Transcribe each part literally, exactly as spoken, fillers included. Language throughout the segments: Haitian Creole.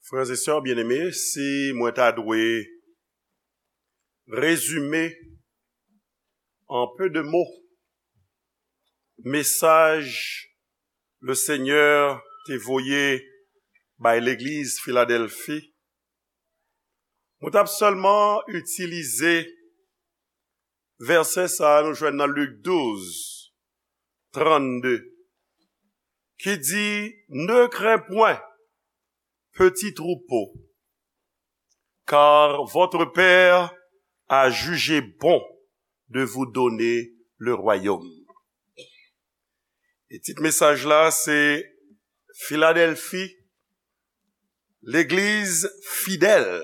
Frères et sœurs bien-aimés, si mwen ta dwe rezime an pe de mo mesaj Lesenyè te voye bay legliz Filadèlfi, mwen t ap sèlman itilize vèsè sa a nou jwenn nan Lik douz, trannde, ki di, Ne crains point, petit troupeau, car votre Père a jugé bon de vous donner le royaume. E tit mesaj la se Filadèlfi, legliz fidèl.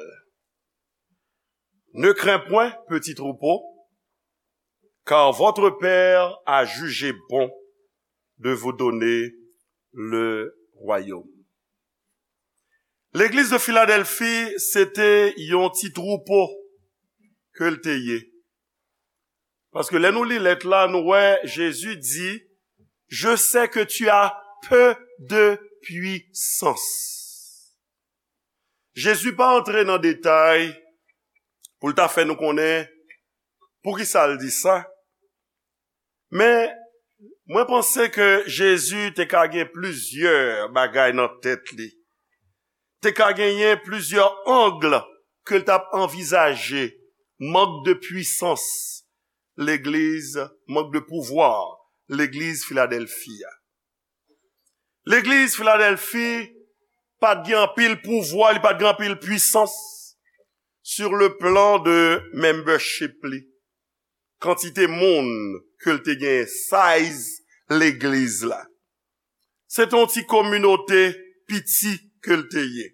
Ne crains point, petit troupeau, car votre Père a jugé bon de vous donner le royaume. Legliz de Filadèlfi, se te yon ti twoupo ke l te ye. Paske lè nou li lèt la, nou wè Jezi di, Je sais que tu as peu de puissance. Jezi pa antre nan detay pou l ta fè nou konnen poukisa l di sa. Men, mwen panse ke Jezi te ka gen plizyè bagay nan tèt li. Te ka genyen plizyè ang ke l t ap anvizaje mank de pwisans legliz, mank de pouvwa legliz Filadèlfi a. Legliz Filadèlfi pa t gen anpil pouvwa, li pa t gen anpil pwisans sur le plan de membership li. Kantite moun ke l te gen, size legliz la. Se te yon ti kominote piti ke l te ye.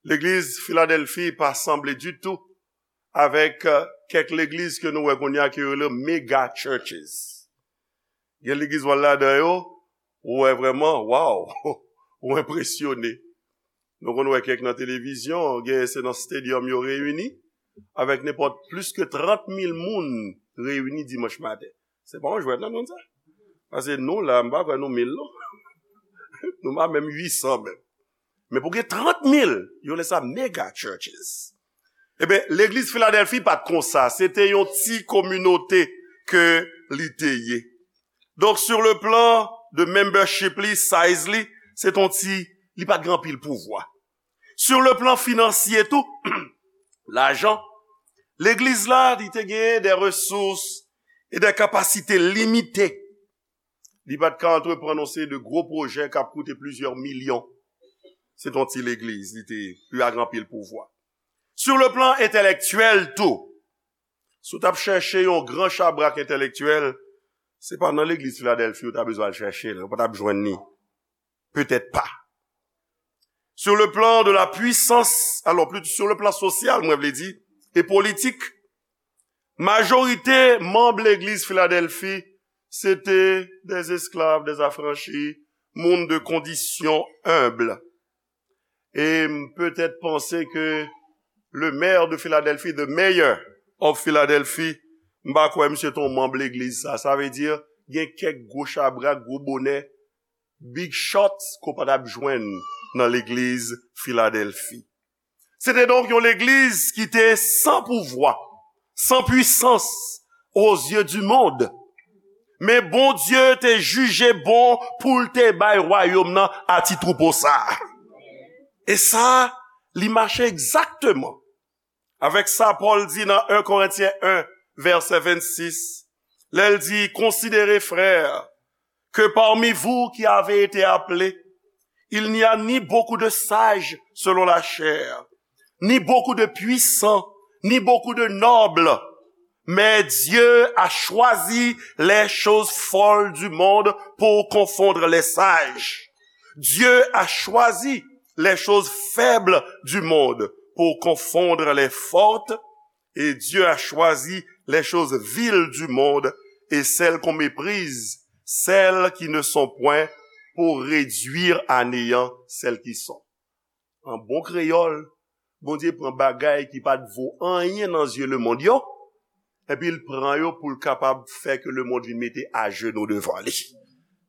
Legliz Filadèlfi pa sanble ditou avèk, euh, kèk legliz ke nou wè kounye a ke yo rele mega churches. Gen legliz w al ladan yo, ou wè vrèman, waw, ou enpresyone. Nou konn wè kèk nan televizyon, gen se nan stadium yo reyini, avèk nenpòt plis ke trant mil moun reyini dimanch maten. Se pa yon jwèt non, moun sa. Paske nou la, m pa kwè nou mil non. Nou pa menm uit san menm. Men pou gen trant mil, yo rele sa mega churches. Ebyen, legliz Filadèlfi pa t konsa. Se te yon ti kominote ke li te ye. Donk, sur le plan de membership li, size li, se t on ti, li pa t gen anpil pouvwa. Sur le plan financier tou, lajan, legliz la, li te genyen de resous e de kapasite limite. Li pa t ka antreprann yon seri de gwo pwojè k ap koute plizyè milyon. Se t on ti legliz, li te, li pa gen anpil pouvwa. Sur le plan entèlektyèl tou, si w t ap chèche yon gran chabrak entèlektyèl, se pa nan legliz Filadèlfi ou ta bezwen al chèche l, ou pa t ap jwenn li. Petèt pa. Sur le plan de la puissance, alò, plito sur le plan sosyal, mwen vle di, e politik, majorite manm legliz Filadèlfi, se te des esclaves, des affranchis, moun de kondisyon enb. E m petèt panse ke le maire de Philadelphie, the mayor of Philadelphie, m pa kwè misye te yon manm legliz sa. Sa vle di, gen kèk gwo chabrak, gwo bonè, big shots ke w pa t ap jwenn nan legliz Filadèlfi. Se te donk yon legliz ki te san pouvwa, san pwisans aux yeux du monde. Men Bondye te jije bon pou l te bay wayòm nan a ti twoupo sa a. E sa, li mache egzakteman avèk sa Pòl di nan en Korentyen en, vèsè vennsis, lè l di, Considérez, frères, que parmi vous qui avez été appelés, il n'y a ni beaucoup de sages selon la chair, ni beaucoup de puissants, ni beaucoup de nobles, mais Dieu a choisi les choses folles du monde pour confondre les sages. Dieu a choisi les choses faibles du monde pour confondre les fortes, et Dieu a choisi les choses viles du monde et celles qu'on méprise, celles qui ne sont point, pour réduire à néant celles qui sont. An bon kreyòl, Bondye pran bagay ki pa t vo anyen nan zye lemonn yo, epi l pran yo pou l kapab fè ke lemonn vin mete ajenou devan li.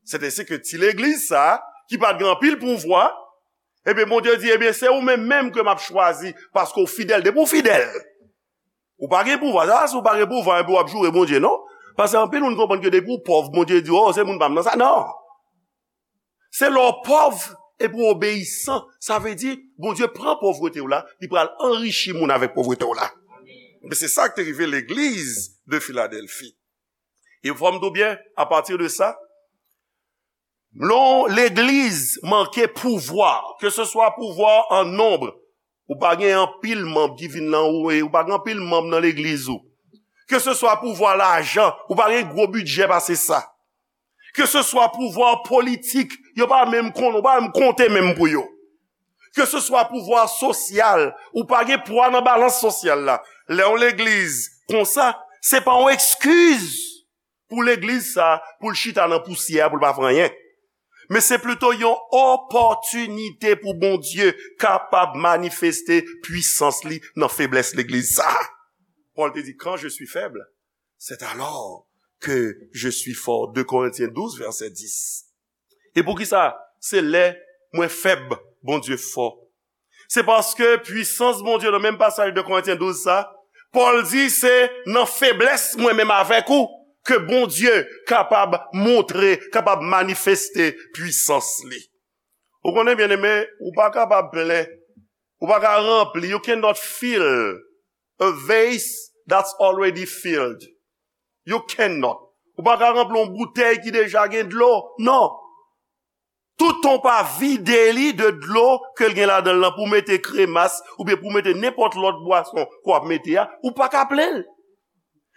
Se te se ke ti legliz sa a, ki pa t gen anpil pouvwa, Ebyen, Bondye di, ebyen, se ou menm menm ke m ap chwazi, paske w fidèl. Depi w fidèl, ou pa gen pouvwa. Sa, si w pa gen pouvwa, epi w ap joure Bondye, non. Paske anpil moun konprann ke depi w pòv, Bondye di, o, se moun pa m nan sa. Non. Se lè w pòv epi w obeyisan. Sa vle di, Bondye pran pòvrete w la, li pral anrichi moun avèk pòvrete w la. Men se sa k te rive legliz de Filadèlfi. E fò m di w byen, apati de sa, lè yon legliz manke pouvwa, ke se swa pouvwa an nonb, ou pa gen anpil manm ki vin nan ou, e ou pa gen anpil manm nan legliz ou. Ke se swa pouvwa lajan, ou pa gen gwo bidjè pase sa. Ke se swa pouvwa politik, yo pa menm konnen, ou pa menm konte menm pou yo. Ke se swa pouvwa sosyal, ou pa gen pwa nan balans sosyal la. Lè yon legliz konsa, se pa yon ekskiz pou legliz sa, pou l chita nan pousyè, pou l pa fè anyen. Men se plito yon opòtinite pou Bondye kapab manifeste pwisans li nan feblès legliz sa. Pòl te di, quand je suis faible, c'est alors que je suis fort. De Korentyen douz, vèsè dis. E poukisa? Se lè mwen fèb, Bondye fò. Se paske pwisans Bondye nan menm pasaj de Korentyen douz sa, Pòl di se nan feblès mwen menm avèk ou ke Bondye kapab montre, kapab manifeste pwisans li. Ou konnen, byeneme, ou pa kapab plen, ou pa ka ranpli, you cannot fill a vase that's already filled. You cannot. Ou pa ka ranpli yon boutèy ki deja gen dlo. Non. Toutan w pa vide li de dlo ke l gen ladan l lan pou w mete kremas oubyen pou w mete nenpòt lòt bwason ke w ap mete a, ou pa ka plen l.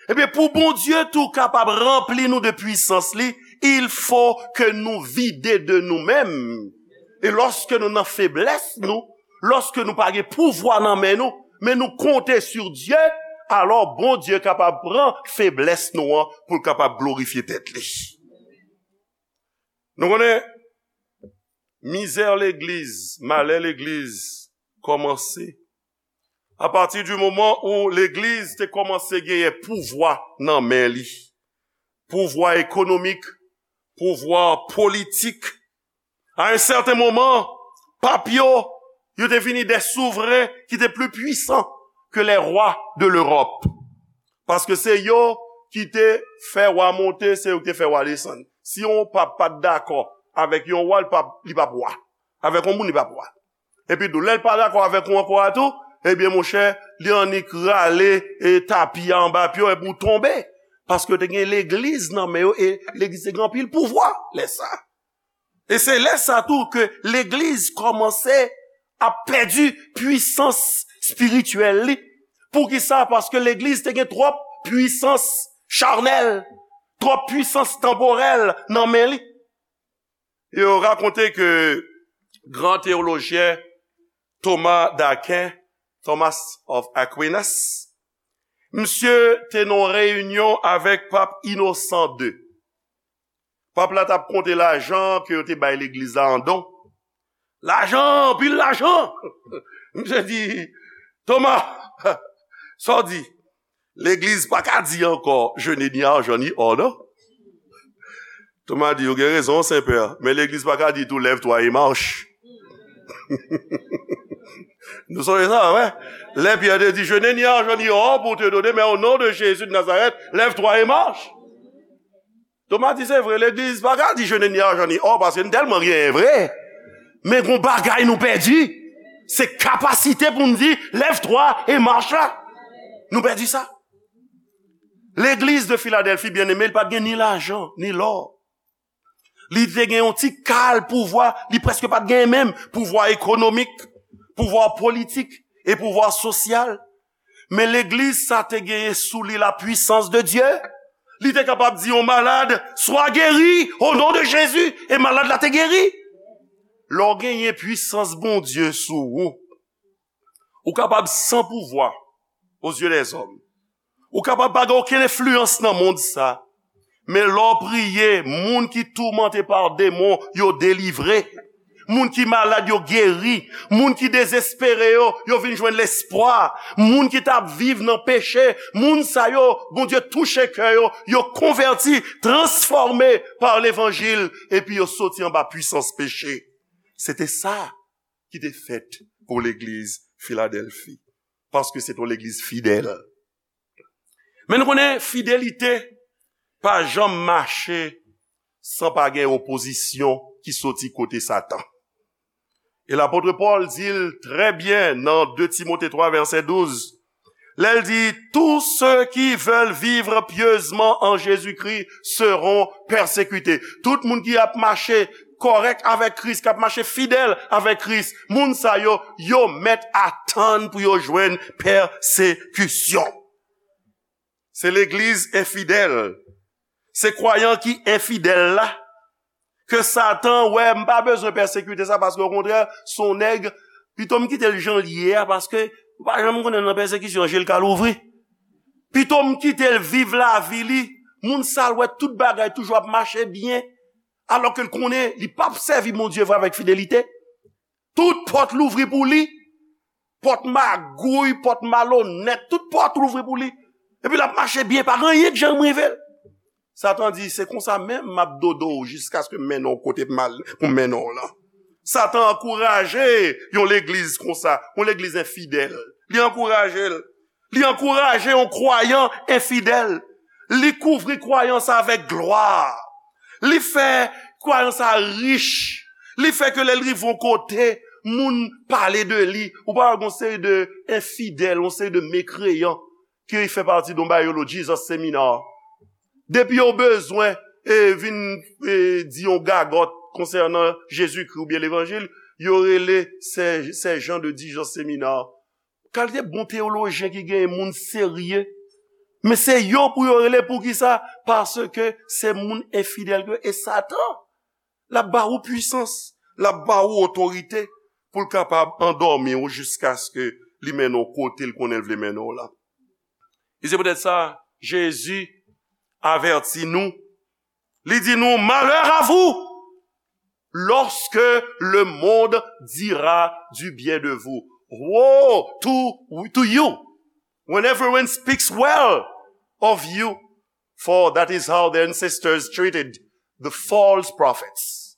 Ebyen, pou Bondye tou kapab ranpli nou de pwisans li, il faut que nou vide de nou menm. E lòske nou nan feblès nou, lòske nou pa gen pouvwa nan men nou, men nou konte sur Dieu, alò Bondye kapab pran feblès nou an pou l kapab glorifye tèt li. Nou konnen, mizè legliz, malè legliz kòmanse apati di moman ou legliz te kòmanse genyen pouvwa nan men li. Pouvwa ekonomik, pouvwa politik. A yon sèten moman, pap yo, yo te vini de souvren ki te pli pwisan ke les rois de l'Europe. Paske se yo ki te fè wa monte, se yo ki te fè wa desann. Si yon pap pa t dakò avèk yon wa, li pap, li pap wa. Avèk yon moun, li pap wa. Epi tou, lè l pa dakò avèk ou ankò a tou, ebyen, monchè, li annik rale, e, tapi a anba pye w epi w tonbe. Paske te gen legliz nan men yo, e legliz te gen anpil pouvwa lè sa. E se lè sa tou ke legliz kòmanse ap pèdi pwisans espirityèl li. Poukisa? Paske legliz te gen twòp pwisans chanèl, twòp pwisans tanporèl nan men li. Yo rakonte ke gran teyolojyen Thomas d'Aquin, Thomas of Aquinas, misye te nan yon reyinyon avèk pap Inosan de. Pap la t ap konte lajan ke yo te bay legliz la an don. Lajan, anpil lajan! Misye di, Thomas, sa w di? Legliz pa ka di ankò, je n'ai ni argent ni or, non? Thomas di, ou gen rezon, Senpè, men legliz pa ka di tou, lève-toi et marche. Nou sonje sa, wè? Lè Pyè te di, je n'ai ni argent ni or pour te donner, mais au nom de Jésus de Nazareth, lève-toi et marche. Thomas di, se vre, legliz pa ka di, je n'ai ni argent ni or, paske n tèlman genyen vre. Men gon bagay nou pèdi. Se kapasite pou n di, lève-toi et marche la. Nou pèdi sa. Legliz de Filadèlfi, byeneme, li pa t gen ni lajan, ni lò. Li te gen yon ti kal pouvwa, li prèske pa t gen menm pouvwa ekonomik, pouvwa politik e pouvwa sosyal. Men legliz sa te genyen sou li la puissance de Dieu. Li te kapab di yon malad, sois guéri au nom de Jésus, e malad la te geri. Lè w genyen pwisans Bondye sou ou, ou kapab san pouvwa aux yeux des hommes. Ou kapab pa gen okenn enfliyans nan mond sa. Men lè w priye, moun ki toumante pa demon, yo delivre. Moun ki malad, yo geri. Moun ki dezespere yo, yo vin jwenn lespwa. Moun ki t ap viv nan peche, moun sa yo, Bondye touche kè yo, yo konvèti, transfòme pa levanjil, epi yo soti anba pwisans peche. Se te sa ki te fèt pou legliz Filadèlfi. Paske se te yon legliz fidèl. Men nou konnen fidelite pa janm mache san pa gen opozisyon ki soti kote Satan. E lapot Pòl di l trè byen nan de Timote twa vèsè douz, lè l di, tous ceux qui veulent vivre pieusement en Jésus-Christ seront persécutés. Tout moun ki ap mache kòrèk avèk Kris, k ap mache fidèl avèk Kris, moun sa yo, yo mèt atann pou yo jwenn pèsekisyon. Se legliz enfidèl. Se kwayan ki enfidèl la. Ke Satan wè, m pa bezwen pèsekite sa, paske okontrè, se yon nèg, pito m kite l jan l ye a, paske ou pa janm konnen nan pèsekisyon, je l ka louvri. Pito m kite l viv lavi li, moun sa l wè tout bagay toujou ap mache byen, alòske l konnen li p ap sèvi Bondye vre avèk fidelite. Tout pòt louvri pou li. Pòt magouy, pòt malonèt, tout pòt louvri pou li. Epi l ap mache byen, pa gen anyen k janm rive l. Satan di, se konsa menm m ap dodo w jiskaske m mennen w kote m al pou m mennen w lan. Satan ankouraje yon legliz konsa, yon legliz enfidèl. Li ankouraje l. Li ankouraje yon kwayan enfidèl. Li kouvri kwayan sa avèk glwa. Li fè kwayan sa rich. Li fè ke lè l rive yon kote, moun pale de li. Ou pa wè gon seri de enfidèl, yon seri de mekreyan ki fè pati de yon bagay yo rele Jesus Seminar. Depi yo bezwen e vin e, di yon gagòt konsènan Jezikri oubyen levanjil, yo rele sè, sè Jan de Dijon Seminar. Kalite bon teyolojyen ki genyen, moun serye. Men se yo pou yo rele. Poukisa? Paske se moun enfidèl ke e Satan. L ap ba ou pwisans, l ap ba ou otorite pou l kapab andòmi w jiskaske li mennen w kote l konnen l vle mennen w la. E se poutèt sa, Jezi avèti nou. Li di nou, malheur à vous lorsque le monde dira du bien de vous. Woe to, to you when everyone speaks well of you, for that is how the ancestors treated the false prophets.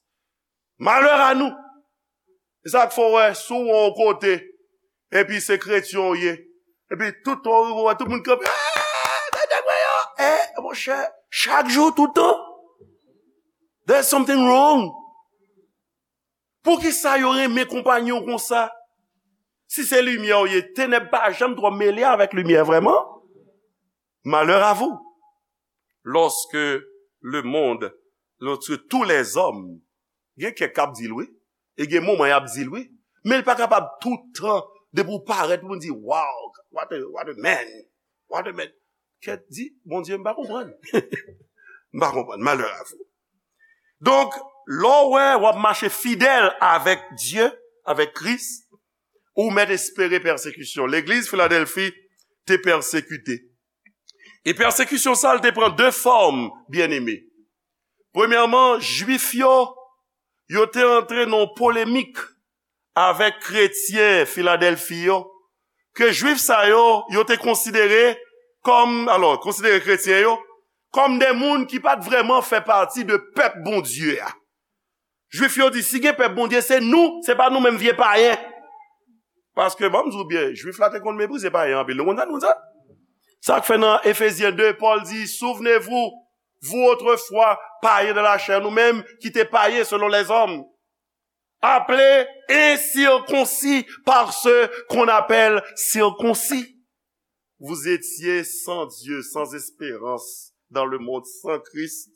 Malheur à nous. E sa k fè w wè, si w wè yon kote, epi se kretyen w ye, epi tout tan w rive, w wè tout moun kanpe, eh, tande mwen yo, eh, monchè, chak jou, tout tan. There's something wrong. Poukisa yo renmen konpanyen w konsa? Si se limyè w ye, tenèb pa janm twò mele avèk limyè, vrèman. Malheur à vous, lorsque le monde, lorsque tous les hommes, gen kèk k ap di l, wi, e gen moman y ap di l, wi, men l pa kapab tout tan, depi w parèt, moun di, wow, what a, what a man, what a man. Kèt, di, Bondye, m pa konprann. M pa konprann, malheur à vous. Donk, lè w wè w ap mache fidèl avèk Dye, avèk Kris, ou mèt espere pèsekisyon. Legliz Filadèlfi te pèsekite. E pèsekisyon sa a, l te pran de fòm, byeneme. Premyèman, Jwif yo, yo te antre nan yon polemik avèk kretyen Filadèlfi yo, ke Jwif sa yo, yo te konsidere kòm, alò, konsidere kretyen yo kòm de moun ki pa t vrèman fè pati de pèp Bondye a. Jwif yo di, si gen pèp Bondye, se nou, se pa nou menm vye payen. Paske, ban m di w byen, Jwif la te konn meprize payen anpil. Nou konn sa, nou konn sa? Sa k fè nan Efezyen de, Pòl di, souvenez-vous, vous autrefois, païens de la chair, nou menm ki te payen selon les hommes, appelés incirconcis par ceux qu'on appelle circoncis. Vous étiez sans Dieu, sans espérance dans le monde, sans Christ.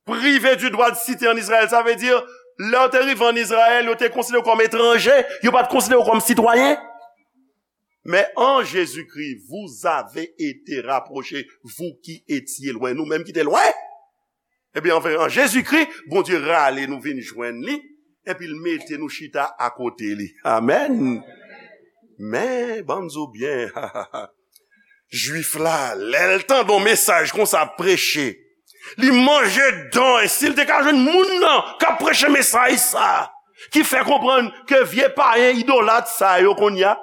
Privé du droit de cité en Israël, sa vle di, lè w te rive ann Izrayèl, yo te konsidere w kòm etranje, yo pa t konsidere w kòm sitwayen. Mais en Jésus-Christ, vous avez été rapprochés, vous qui étiez loin, nou menm ki te lwen. Ebyen, anfen, an Jezikri, Bondye rale nou vin jwenn li, epi l mete nou chita akote li. Amèn. Men, ban m di w byen, Jwif la, lè l tande yon mesaj konsa ap preche, li manje dan, e si l te ka jwenn moun nan k ap preche mesaj sa, ki fè konprann ke vye payen idolat sa yo kounye a,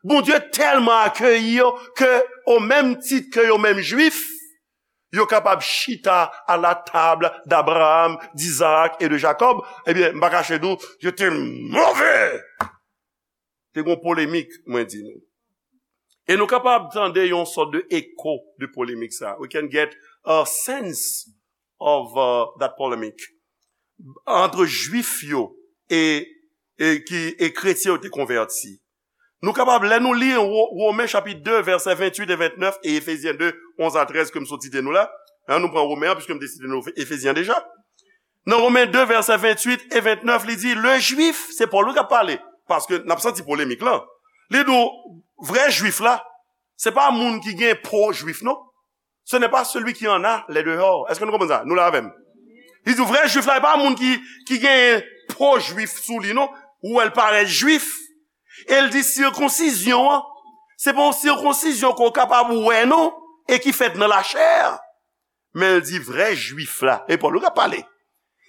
Bondye tèlman akeyi yo ke, o menm tit ke yo menm Jwif, Yo kapab chita à la table d'Abraham, d'Isaac et de Jacob. Ebyen, m pa kache di w, yo te move. Te gon polemik, mwen di nou. E nou kapab tande yon sòt de eko de polemik sa. We can get a sense of uh, that polemic. Antre Jwif yo e, e, ki, e kretyen yo te konvèti. Nou kapab, lè nou li Wo- Women chapit de, vèsè venntuit e vennèf, e Efezyen de, onz a trèz ke m sot site nou la. Hein, nou pran Women an, piske m te site nou Efezyen deja. Nan Women de, vèsè venntuit e vennèf, li di, le Jwif, se Pòl wi k ap pale, paske n ap santi polemik lan. Li di w, vrè Jwif la, se pa moun ki gen po Jwif, non. Ce n'est pas celui qui en a les dehors. Èske nou konprann sa? Nou la avè m? Li di, vrè Jwif la, e pa moun ki, ki gen po Jwif sou li, non. Ou wè l parèt Jwif. E l di, sikonsizyon an, se pa yon sikonsizyon ke w kapab wè, non, e ki fèt nan lachè. Men l di, vrè Jwif la, e Pòl wi k ap pale.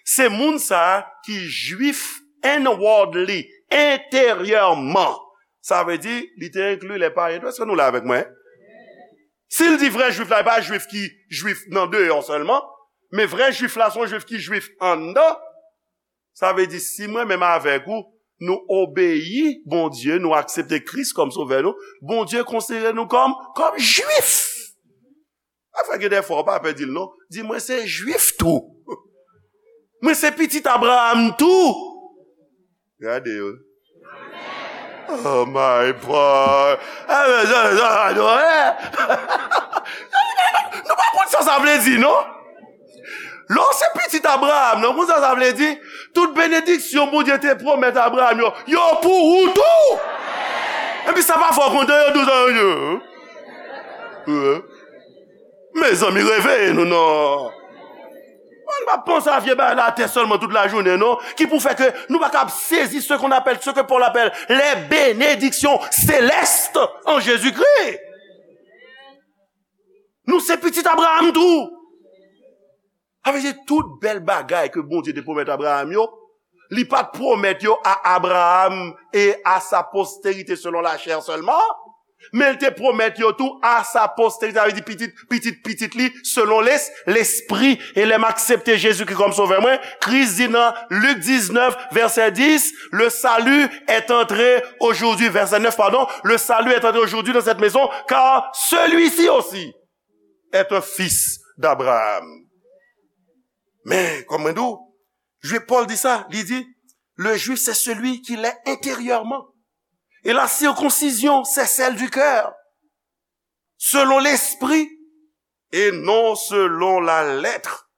Se moun sa a ki Jwif inwardly, enteryèman. Sa vle di, li te enkli lè payen tou. Èske nou la avèk mwen? Si l di vrè Jwif la, e pa Jwif ki Jwif nan deyò sèlman, men vrè Jwif la, se yon Jwif ki Jwif anndan. Sa vle di, si mwen menm avèk ou, nou obeyi Bondye, nou aksepte Kris kòm Sovè nou, Bondye konsidere nou kòm, kòm Jwif. Afè gen de fwa w pa pè di l non. Di, mwen se Jwif tou. Mwen se pitit Abraham tou. Gade yo. Oh my boy. Nou pa konn sa sa vle di non. Lè w se pitit Abraham, non, konn sa sa vle di? Tout benediksyon Bondye te pwomèt Abraham yo, yo pou ou tou. Epi sa pa fè w kontan, yo di w sa yo. Mezanmi, reveye nou non. Mwen pa panse a vye bagay la atè sèlman tout lajounen non, ki pou fè ke nou pa kab sezi ce qu'on appelle, ce que Paul appelle les bénédictions célestes en Jésus-Christ. Nou se pitit Abraham tou. Sa vle di tout bèl bagay ke Bondye te pwomèt Abraham yo, li pa t pwomèt yo a Abraham et à sa postérité selon la chair seulement, men l te pwomèt yo tou à sa postérité, sa vle di pitit, pitit, pitit li, selon les, lespri. E lè m aksepte Jezikri kòm Sovè mwen, Kris di nan Lik diznèf, vèsè dis, le salut est entré aujourd'hui, verset neuf, pardon, le salut est entré aujourd'hui dans cette maison, car celui-ci aussi est un fils d'Abraham. Men, kòm mwen di w, Jwif, Pòl di sa, li di, le juif, c'est celui qui l'est intérieurement. Et la circoncision, c'est celle du cœur, selon l'esprit, et non selon la lettre.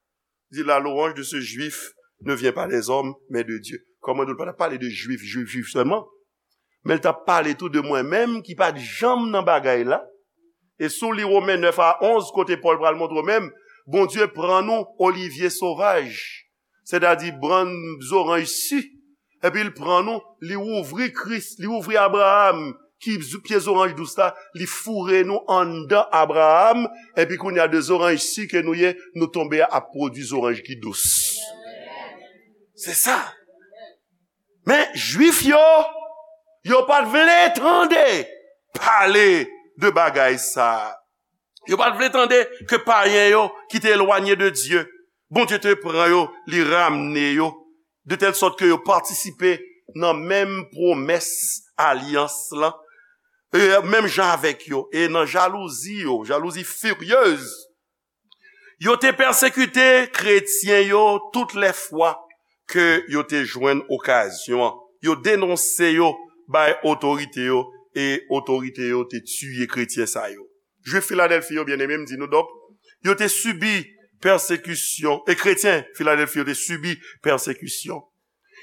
Di, la louange de ce juif ne vient pas des hommes, mais de Dieu. Kòm mwen di w, l pa t ap pale de jwif, jwif, jwif sèlman. Men l t ap pale tou de mwen menm ki pa t janm nan bagay la. E si w li Women nèf a onz, kote Pòl pral montre w menm, Bondye pran nou olivye sovaj, sètadi bann zoranj si, epi l pran nou, li ouvri Kris, li ouvri Abraham, ki z- pye zoranj dous la, li foure nou anndan Abraham, epi kounye a de zoranj si ke nou ye, nou tonbe a ap pwodui zoranj ki dous. Se sa. Men Jwif yo, yo pa t vle tande pale de bagay sa a. Yo pa t vle tande ke payen yo ki te elwanye de Dye, Bondye te pran yo, li ramne yo, de tèl sòt ke yo patisipe nan menm pwomès alyans lan, e menm jan avèk yo, e nan jalouzi yo, jalouzi firyez, yo te pèsekite kretyen yo tout lè fwa ke yo te jwenn okazyon an. Yo denonse yo bay otorite yo, e otorite yo te tiye kretyen sa yo. Jwif Filadèlfi yo, byeneme, m di nou, donk, yo te sibi pèsekisyon, e kretyen Filadèlfi yo te sibi pèsekisyon.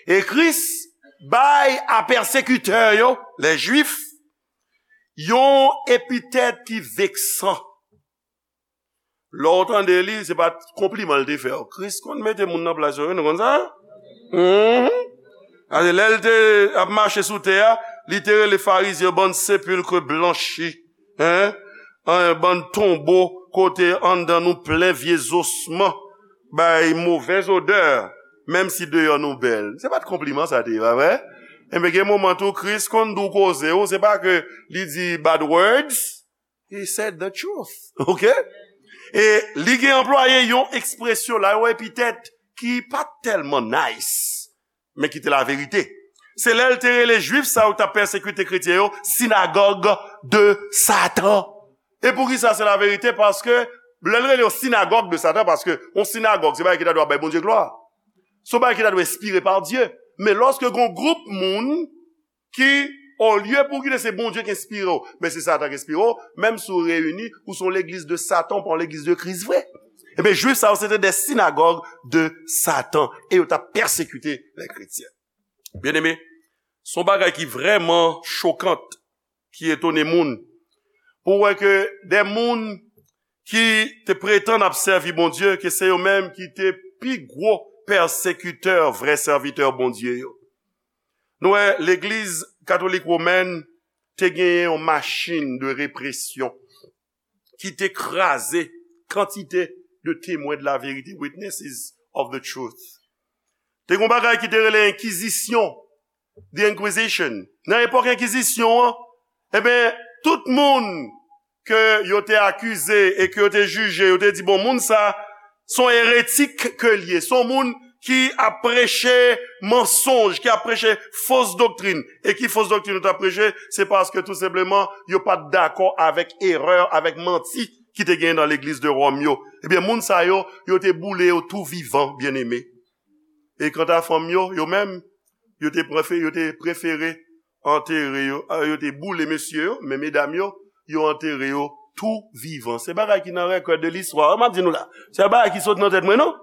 E Kris bay a pèsekitè yo, lè Jwif, yon epitèt ki veksan. Lè w tande li, se pa t konpliman l te fè w. Kris konn mete moun nan plas yo, wi, nou konn sa? Mhm. Gade, lè l te ap mache sou tè a, li te rele Farizyen yo bann sepilk blanchi, hein? An, bann tonbo kote anndan nou plen vye zosman, bay movèz odè, menm si deyò nou bèl. Se pa t konpliman sa te ye, pa vre? Enben, gen moman tou, Kris konn di w koze w, se pa ke li di bad words, he said the truth. Ok? E li gen anplwaye yon ekspresyon la, yon epitèt ki pa tèlman nice, men ki te laverite. Se lè l te rele Jwif sa yo k t ap pèsekite kretyen yo, sinagòg de Satan. E poukisa se laverite? Paske lè l rele yo sinagòg de Satan, paske yon sinagòg, se bagay ki ta dwe ap bay Bondye glwa. Se yon bagay ki ta dwe enspire pa Dye. Men lòske gon gwoup moun ki, olye pou kite se Bondye ki enspire w, men se Satan ki enspire w, menm si w reyini, ou se yon legliz de Satan, ou pa yon legliz de Kris vre. Ebyen, Jwif sa yo, se te de sinagòg de Satan, e yo t ap pèsekite lè kretyen. Byeneme, se yon bagay ki vrèman chokan, ki etone moun. Pou w wè ke de moun ki te pretann ap sèvi Bondye, ke se yo menm ki te pi gwo pèsekitè vrè sèvitè Bondye yo. Nou wè, legliz katolik womèn te genyen yon machin de represyon ki te kraze kantite de temwen de laverite, witnesses of the truth. Te gen yon bagay ki te rele enkizisyon, the Inquisition. Nan epòk enkizisyon an, ebyen, tout moun ke yo te akize e ke yo te jije, yo te di, bon, moun sa, se yon eretik ke l ye, se yon moun ki ap preche mansonj, ki ap preche fos doktrin. E ki fos doktrin yo t ap preche? Se paske tou senpleman, yo pa t dakò avèk erè, avèk manti ki te genyen nan legliz de Wòm yo. Ebyen, moun sa yo, yo te boule yo tou vivan, byeneme. E kanta fanm yo, yo menm, yo te prefe-, yo te prefere antere yo, a, yo te boule mesye yo, men medam yo, yo antere yo tou vivan. Se bagay ki nan rekòd de listwa, m ap di nou la. Se bagay ki sot nan tèt mwen, non?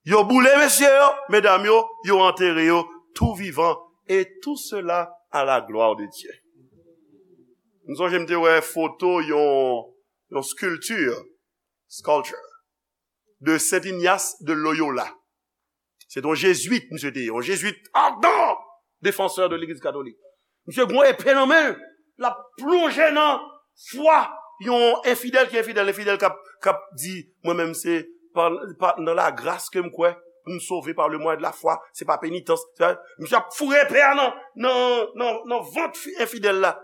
Yo boule mesye yo, medam yo, yo antere yo tou vivan. Et tout cela à la gloire de Dieu. M sonje m te wè foto yon, yon sculpture, sculpture, de Saint Ignace de Loyola. Se te yon jezwit, misye te ye, yon jezwit ardent, défenseur de legliz katolik. Misye gen yon epe nan men l, l ap plonje nan fwa yon enfidèl ki enfidèl, enfidèl k ap, k ap di, mwen menm se pa, pa nan lagras ke m kwè, pou m sove par le moyen de la foi, se pa penitans. Se pa, misye ap foure epe a nan, nan, nan, nan vant fi-, enfidèl la.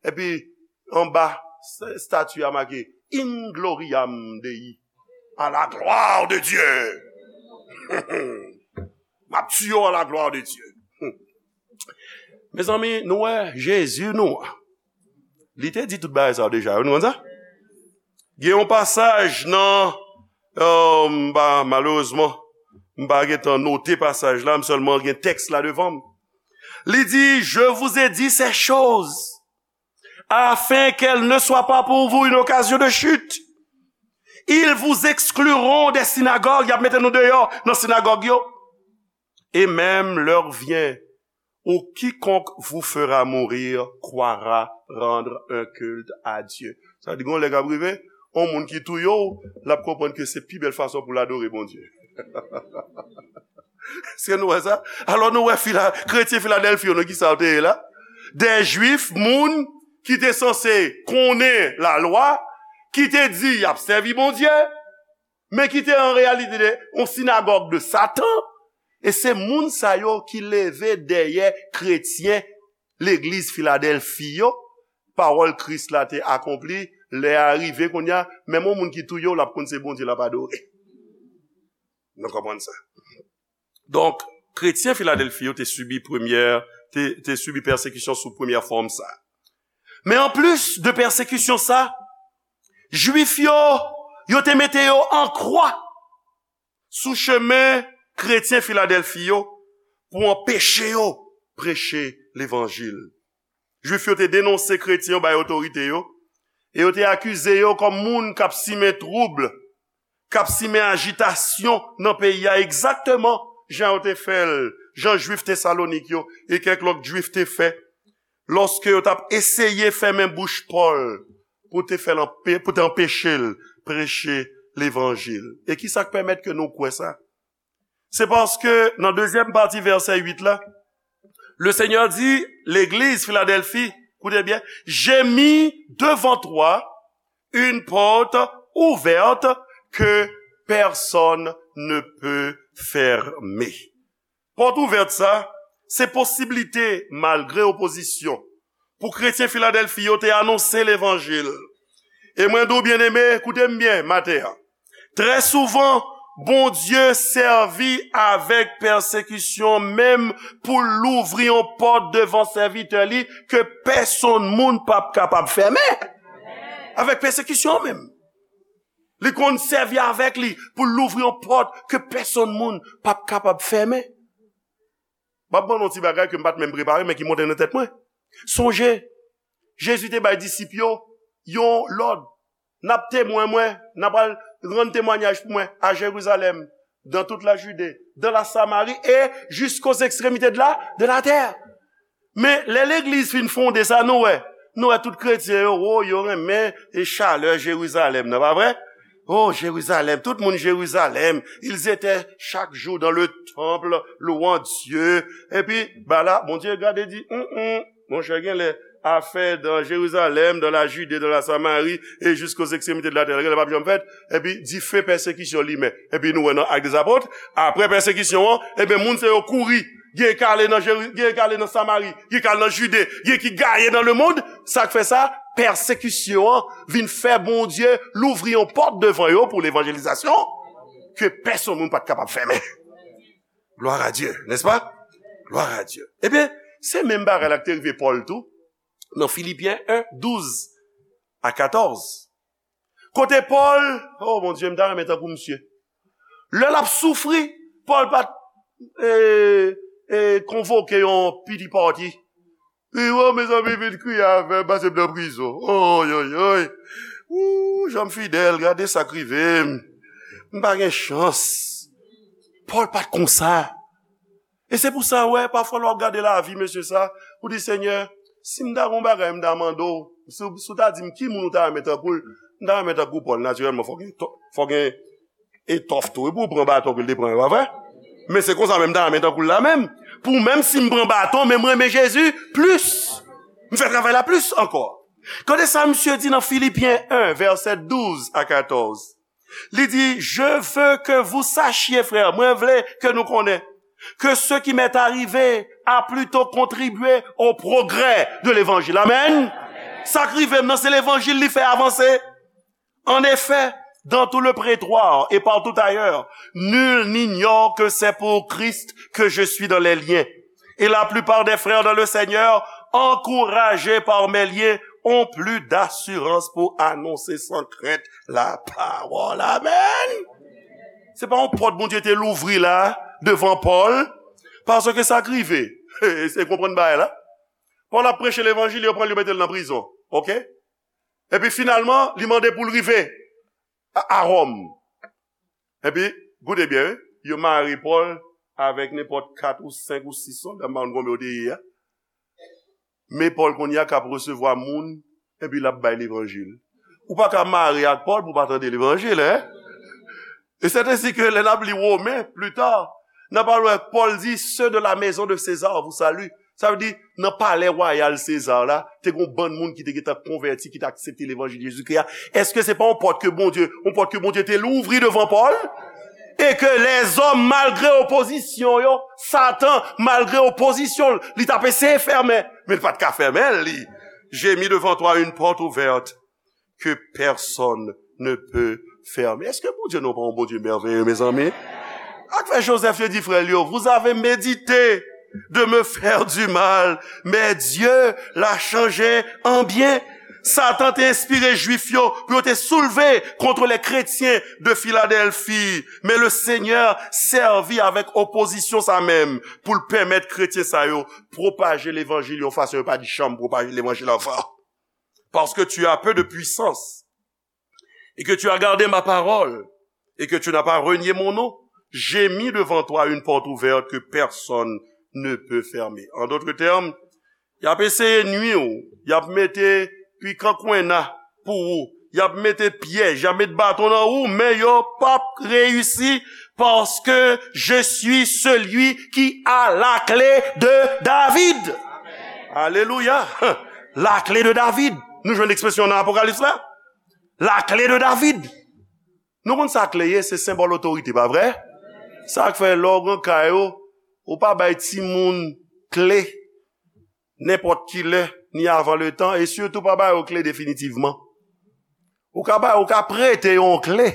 Epi, anba s-, estati a make, In gloriam Dei, à la gloire de Dieu. M ap tiye w à la gloire de Dieu. Mezanmi, nou wè Jezi nou an. Li te di tout bagay sa yo deja, nou konn sa? Gen yon pasaj nan, euh, m pa, malerezman, m pa gentan note pasaj la, m sèlman gen tèks la devan m. Li di, je vous ai dit ces choses, afin qu'elles ne soient pas pour vous une occasion de chute. Ils vous excluront des synagogues, y ap mete nou deyò nan sinagòg yo. Et même l'heure vient où quiconque vous fera mourir croira rendre un culte à Dieu. Sa di, gon lè k ap rive, yon moun ki touye w, l ap konprann ke se pi bèl fason pou l adore Bondye. Èske nou wè sa? Alò, nou wè fila-, kretyen Filadèlfi yo, nan ki sa yo te ye la? De Jwif, moun ki te sanse konnen lalwa, ki te di y ap sèvi Bondye, men ki te an reyalite de, yon sinagòg de Satan, e se moun sa yo ki leve dèyè kretyen legliz Filadèlfi yo, pawòl Kris la te akonpli, lè a rive kounye a, menm yon moun ki touye w, l ap konn se Bondye l ap adore. Nou konprann sa? Donk, kretyen Filadèlfi yo te sibi premyè, te, te sibi pèsekisyon sou premyè fòm sa. Men anplis de pèsekisyon sa, Jwif yo, yo te mete yo an kwa sou chemen kretyen Filadèlfi yo pou anpeche yo preche levanjil. Jwif yo te denonse kretyen yo bay otorite yo, e yo te akize yo kòm moun k ap simen twoub, k ap simen ajitasyon nan peyi a, egzakteman jan yo te fè l, jan Jwif Tesalonik yo e kèk lòt Jwif te fè, lòske yo t ap eseye fèmen bouch Pòl pou te fè l anpe-, pou te anpeche l preche levanjil. E ki sa k pèmèt ke nou kwè sa? Se paske nan dezyèm pati vèsè uit la, le Seigneur dit, l'église Philadelphie, écoutez bien, j'ai mis devant toi une porte ouverte que personne ne peut fermer. Pòt ouvèt sa, se posiblite, malgre opozisyon, pou kretyen Filadèlfi yo te anonse levanjil. E mwen di w, byeneme, koute m byen maten an. Trè souvan, Bondye sèvi avèk pèsekisyon menm pou l louvri yon pòt devan sèvitè li ke pèsonn moun p ap kapab fèmen. Avèk pèsekisyon menm. Li konn sèvi avèk li pou l louvri yon pòt ke pèsonn moun p ap kapab fèmen. M ap ban nou yon ti bagay ke m pa t menm prepare, men ki monte nan tèt mwen. Sonje, Jezi te bay disip yo yon lòd. N ap temwen mwen, n ap al rann temwanyaj pou mwen a Jerizalèm, dans toute la Judée, dans la Samarie et jusqu'aux extrémités de la, de la terre. Men lè legliz fin fonde sa, nou wè, nou wè tout kretyen yo, o, yo renmen e chalè Jerizalèm nan, pa vre? O, Jerizalèm, tout moun Jerizalèm, ils étaient chaque jour dans le temple, louant Dieu. Epi, ba la, Bondye gade di, hum, hum, monchè, genlè afè dans Jérusalem, dans la Judée, dans la Samarie et jusqu'aux extrémités de la terre. Genlè p ap janm fèt. Epi, dife pèsekisyon limen. Epi, nou wè nan Actes des Apôtres, apre pèsekisyon an, ebyen, moun se yo kouri. Gen k ale nan Jeri-, gen k ale nan Samari, gen k ale nan Jide, gen ki gaye nan lemonn. Sa k fè sa? Pèsekisyon an vin fè Bondye louvri yon pòt devan yo pou levanjelizasyon ke pèsonn moun pa t kapab fèmen. Gloire à Dieu, n'est-ce pas? Gloire à Dieu. Ebyen, se menm bagay la ki te rive Pòl tou, nan Filipyen en, douz a katòz. Kote Pòl, o Bondye, m ta renmen tankou misye. Lè l ap soufri, Pòl pa t, e, e, konvoke yon pity party. Li, o, mezanmi, vin kriye avè m, pase m nan prizon. Oy, oy, oy. Ou, jan m fidèl, gade sa k rive m. M pa gen chans. Pòl pa t konsa. E se pou sa, w wè, pafwa lè w ap gade lavi mesye sa, ou di, Senyè, si m ta gen yon bagay m ta mande w, si, w- si w ta di m ki moun ou ta renmen tankou l, m ta renmen tankou Pòl, natirèlman, fò gen, fò gen etòf tou, wi, pou w pran baton ke l te pran yo, pa vre? Men se konsa menm m ta renmen tankou l la menm. Pou menm si m pran baton, men m renmen Jezi plis. M fè travay la plis ankò. Gade sa misye di nan Filipyen en, vèsè douz a katòz. Li di, Je veux que vous sachiez, frères, mwen vle ke nou konnen, que ce qui m'est arrivé a plutôt contribué au progrès de l'évangile. Amen. Sa k rive m nan, se levanjil li fè avanse. En effet, dans tout le prétoire et partout ailleurs, nul n'ignore que c'est pour Christ que je suis dans les liens. Et la plupart des frères dans le Seigneur, encouragés par mes liens, ont plus d'assurance pour annoncer sans crainte la parole. Amen. Se pa yon pòt Bondye te louvri la devan Pòl, paske sa k rive, se konprann bagay la. Pòl ap preche levanjil, yo pran l, yo mete l nan prizon. Oke? Epi finalman, li mande pou l rive a, a Wòm. Epi, koute byen, wi, yo mare Pòl avèk nenpòt kat ou senk ou sis sòlda, m pa konn konbyen yo te ye a. Men Pòl kounye a k ap resevwa moun, epi l ap bay levanjil. Ou pa ka mare ak Pòl pou w pa tande levanjil, en? E c'est ainsi que lè n ap li Women, pli ta, n ap al wè Pòl di, Ceux de la maison de César vous saluent. Sa vle di, nan palè wayal Seza la, te gen yon bann moun ki te gentan konvèti, ki te aksepte levanjil Jezikri a. Èske se pa yon pòt ke Bondye, yon pòt ke Bondye te louvri devan Pòl? E ke lèzòm, malgre opozisyon yo, Satan, malgre opozisyon l, li t ap eseye fèmen, men l pa t ka fèmen l, li. J'ai mis devant toi une porte ouverte que personne ne peut fermer. Èske Bondye nou pa yon Bondye mèveye, mezanmi? Ak fè Joseph yo di frè l yo, Vous avez médité de me faire du mal, mais Dieu l'a changé en bien. Satan te enspire Jwif yo pou yo te soulve kont lè kretyen de Filadèlfi. Men le Senyè sèvi avèk opozisyon sa menm pou l pèmèt kretyen sa yo pwopaje levanjil yon fason yo pa t janm pwopaje levanjil anvan. Parce que tu as peu de puissance et que tu as gardé ma parole et que tu n'as pas renié mon nom, j'ai mis devant toi une porte ouverte que personne ne peut fermer. En d'autres termes, y ap eseye nwi w, y ap mete pikan kwenna pou ou, y ap mete pyèj, y ap met baton nan ou, men yo p ap reyisi, parce que je suis celui qui a la clé de David. Alelouya! La clé de David. Nou jwenn ekspresyon nan Apokalips la. La clé de David. Nou konn sa kle ye, se senbòl otorite, pa vre? Sa k fè lè w gen kay ou, ou pa bay timoun kle nenpòt ki lè, ni avan letan, e sitou pa ba yo kle definitivman. Ou ka bay, ou ka prete yon kle.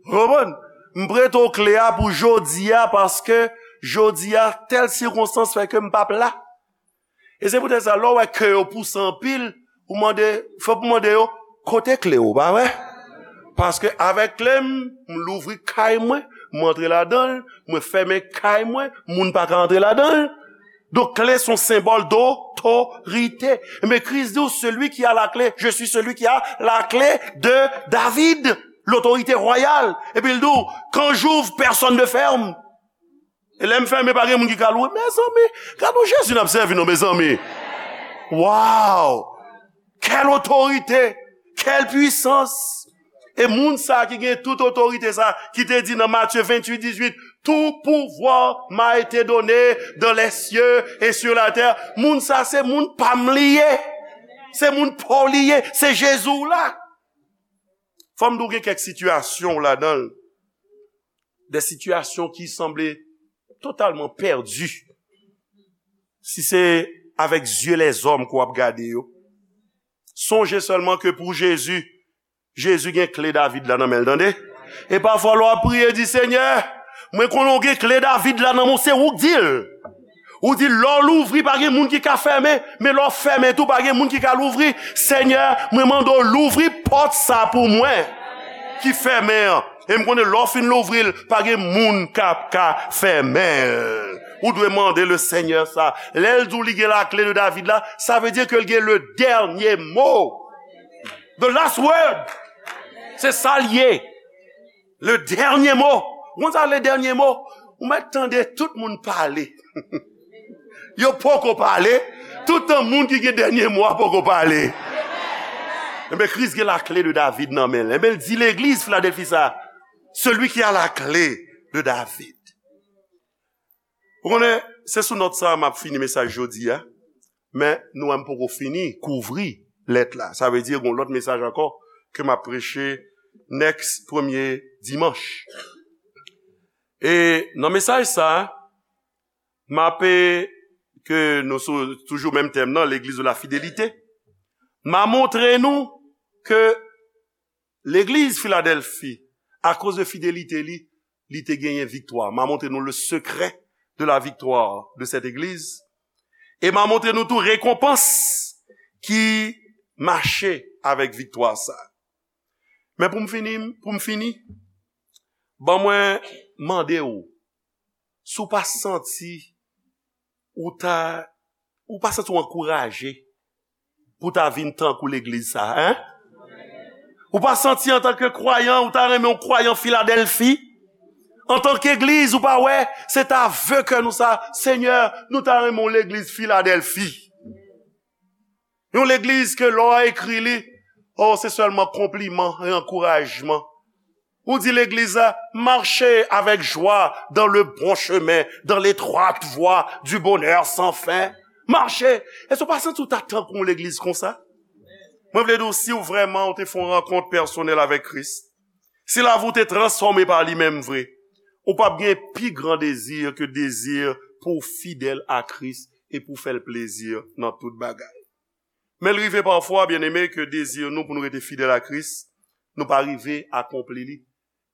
Ou konprann? M prete w kle a pou jodi a, paske jodi a, tèl sikonstans fè ke m p ap la. E se poutèt sa, lè w wè ke yo pouse anpil, ou mande, fòk ou mande yo, kote kle w, pa vre? Paske avèk kle m, m louvri kay mwen, m antre ladan l, mwen fèmen kay mwen, moun pa ka antre ladan l. Donk, kle se yon senbòl dotorite. Men Kris di w, celui qui a la clé, je suis celui qui a la clé de David, l'autorité royale. Epi l di w, quand j'ouvre, personne ne ferme. E lè m fèmen, pa gen moun ki ka louvri. Mezanmi, gade yon Jezi n ap sèvi, non, mezanmi. Wow! Quelle autorité! Quelle puissance! E moun sa ki gen tout otorite sa, ki te di nan Matye venntuit dizuit, tout pouvoir m'a été donné dans les cieux et sur la terre. Moun sa se moun pa m li ye. Se moun pa w li ye. Se Jezi w la. Fò m di w gen kèk sitiyasyon w ladan l. De sitiyasyon ki sanble totalman pèdi. Si se avèk zye lèzòm ke w ap gade yo. Sonje sèlman ke pou Jezi, Jezi gen kle David la nan men l, tande. E pafwa lè w ap priye, di, Senyè, mwen konnen w gen kle David la nan men w, se ou k di l. Ou di, lè w louvri, pa gen moun ki ka fèmen, men lè w fèmen tou, pa gen moun ki ka louvri. Senyè, mwen mande w louvri pòt sa pou mwen ki fèmen an. E m konnen lè w fin louvri l, pa gen moun k ap ka fèmen l. Ou dwe mande le Senyè sa. Lè l di w li gen lakle de David la, sa vle di ke l gen le dènye mo. The last word. Se sa l ye. Le dènye mo. Ou konn sa le dènye mo? Ou mèt tande tout moun pale. Yo poko pale. Toutan moun ki gen dènye mo a poko pale. Enben, Kris gen lakle de David nan men l. Enben, l di legliz Filadèlfi sa, celui qui a la clé de David. Ou konnen, se sou nòt sa a m ap fini mesaj jodi a. Men nou wè m poko fini kouvri lèt la. Sa vle di gen yon lòt mesaj ankò ke m ap preche next premye dimanch. E nan mesaj sa a, m ape ke nou sou toujou menm tèm nan, legliz de la fidelite. M a montre nou ke legliz Filadèlfi, akoz de fidelite li, li te genyen viktwa. M a montre nou le secret de la victoire de cette église. E m a montre nou tou rekonpans ki mache avèk viktwa sa. Men pou m fini, pou m fini, ban mwen mande w, si w pa santi ou ta, ou pa santi w ankouraje pou ta vin tankou legliz sa, en? Ou pa santi antanke kwayan, ou ta renmen yon kwayan Filadèlfi? Antanke egliz, ou pa wè, se ta ve kè nou sa, Senyè, nou ta renmen yon legliz Filadèlfi. Yon legliz ke lè w ekri li, oh, se sèlman konpliman e ankourajman. Ou di legliz la, marchez avec joie dans le bon chemin, dans l'étroite voie du bonheur sans fin. Mache. Èske w pa santi w ta tankou yon legliz konsa? Mwen vle di w, si w vrèman ou te fè yon rankont pèsonèl avèk Kris, si lavi w te transfòme pa li menm vre, ou p ap gen pi gran dezi ke dezi pou w fidèl a Kris e pou w fè l plezi nan tout bagay. Men l rive pafwa, byeneme, ke dezi nou pou nou rete fidèl a Kris, nou pa rive akonpli li.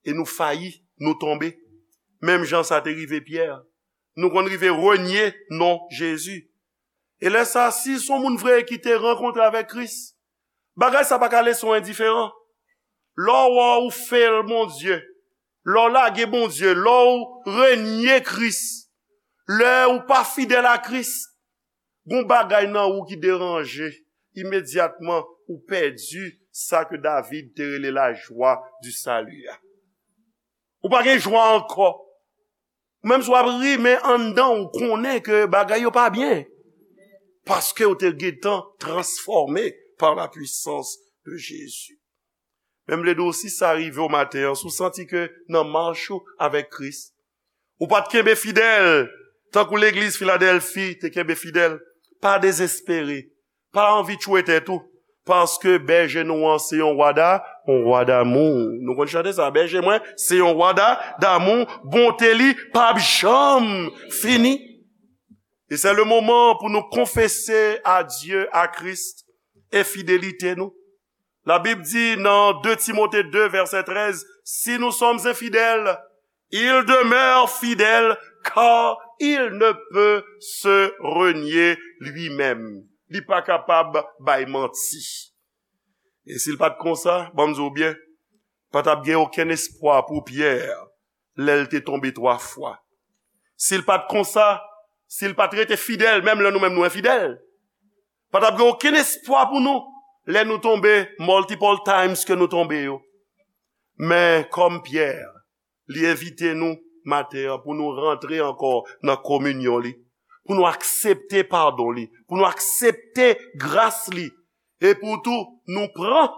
E nou fayi, nou tonbe. Menm jan sa te rive Pyè. Nou konn rive renye non Jezi. E lè sa, si s on moun vre ki te rankontre avèk Kris, bagay sa pa ka lese w endiferan. Lè w wè w fè l Bondye, lè w lage Bondye, lè w renye Kris, lè ou pa fidèl a Kris, gon bagay nan ou ki deranje, imedyatman ou pèdi sa ke David te rele la joie du salut a. Ou pa gen jwa ankò. Menm si w ap ri, men anndan w konnen ke bagay yo pa byen. Paske w te gentan transfòme par la puissance de Jésus. Men m vle di w, si sa rive w maten an, si w santi ke nan mach ou avèk Kris, ou pa t kenbe fidèl, tankou legliz Filadèlfi te kenbe fidèl, pa dezespere, pa anvi tchwe tèt ou, paske bèje nou an se yon wa da, yon wa damou. Nou konn chante sa, bèje mwen se yon wa da, damou, bonte li p ap janm fini. E se le moman pou nou konfese a Dye, a Kris, enfidelite nou. Labib di nan de Timote de vèsè trèz, si nous sommes infidèles, il demeure fidèle, car il ne peut se renier lui-même. Li pa kapab bay manti. E si l pa t konsa, ban m di w byen, pa t ap gen okenn espwa pou Pyè lè l te tonbe twa fwa. Si l pa t konsa, si l pa t rete fidèl, menm lè nou menm nou enfidèl, pa t ap gen okenn espwa pou nou lè nou tonbe multiple times ke nou tonbe yo. Men kòm Pyè, li envite nou maten an pou nou rantre ankò nan kominyon li, pou nou aksepte padon li, pou nou aksepte gras li, e pou tou nou pran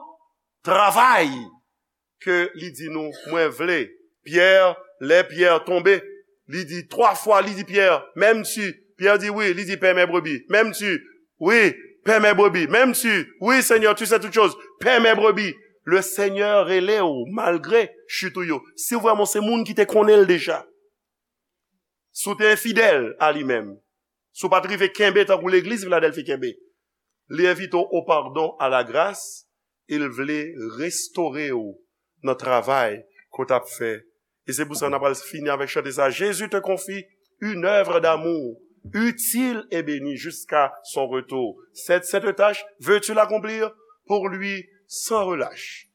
travay ke li di nou, mwen vle. Pyè, lè Pyè tonbe, li di twa fwa, li di Pyè, menm si. Pyè di wi, li di pè mè brebi, menm si. Wi, pè mè brebi, menm si. Wi, Senyè, tu sais toutes choses, pè mè brebi. Le Senyè rele w malgre chit ou yo. Si w vrèman se moun ki te konnen l deja, si w te enfidèl a li menm, si w pa t rive kenbe tankou legliz Filadèlfi kenbe, li envite w o padon, a la gras, e l vle restore w nan travay ke w t ap fè. E se pou sa n ap al fini avèk chante sa, Jésus te confie une œuvre d'amour utile et bénie jusqu'à son retour. Cette sainte tâche, veux-tu l'accomplir pour lui sans relâche?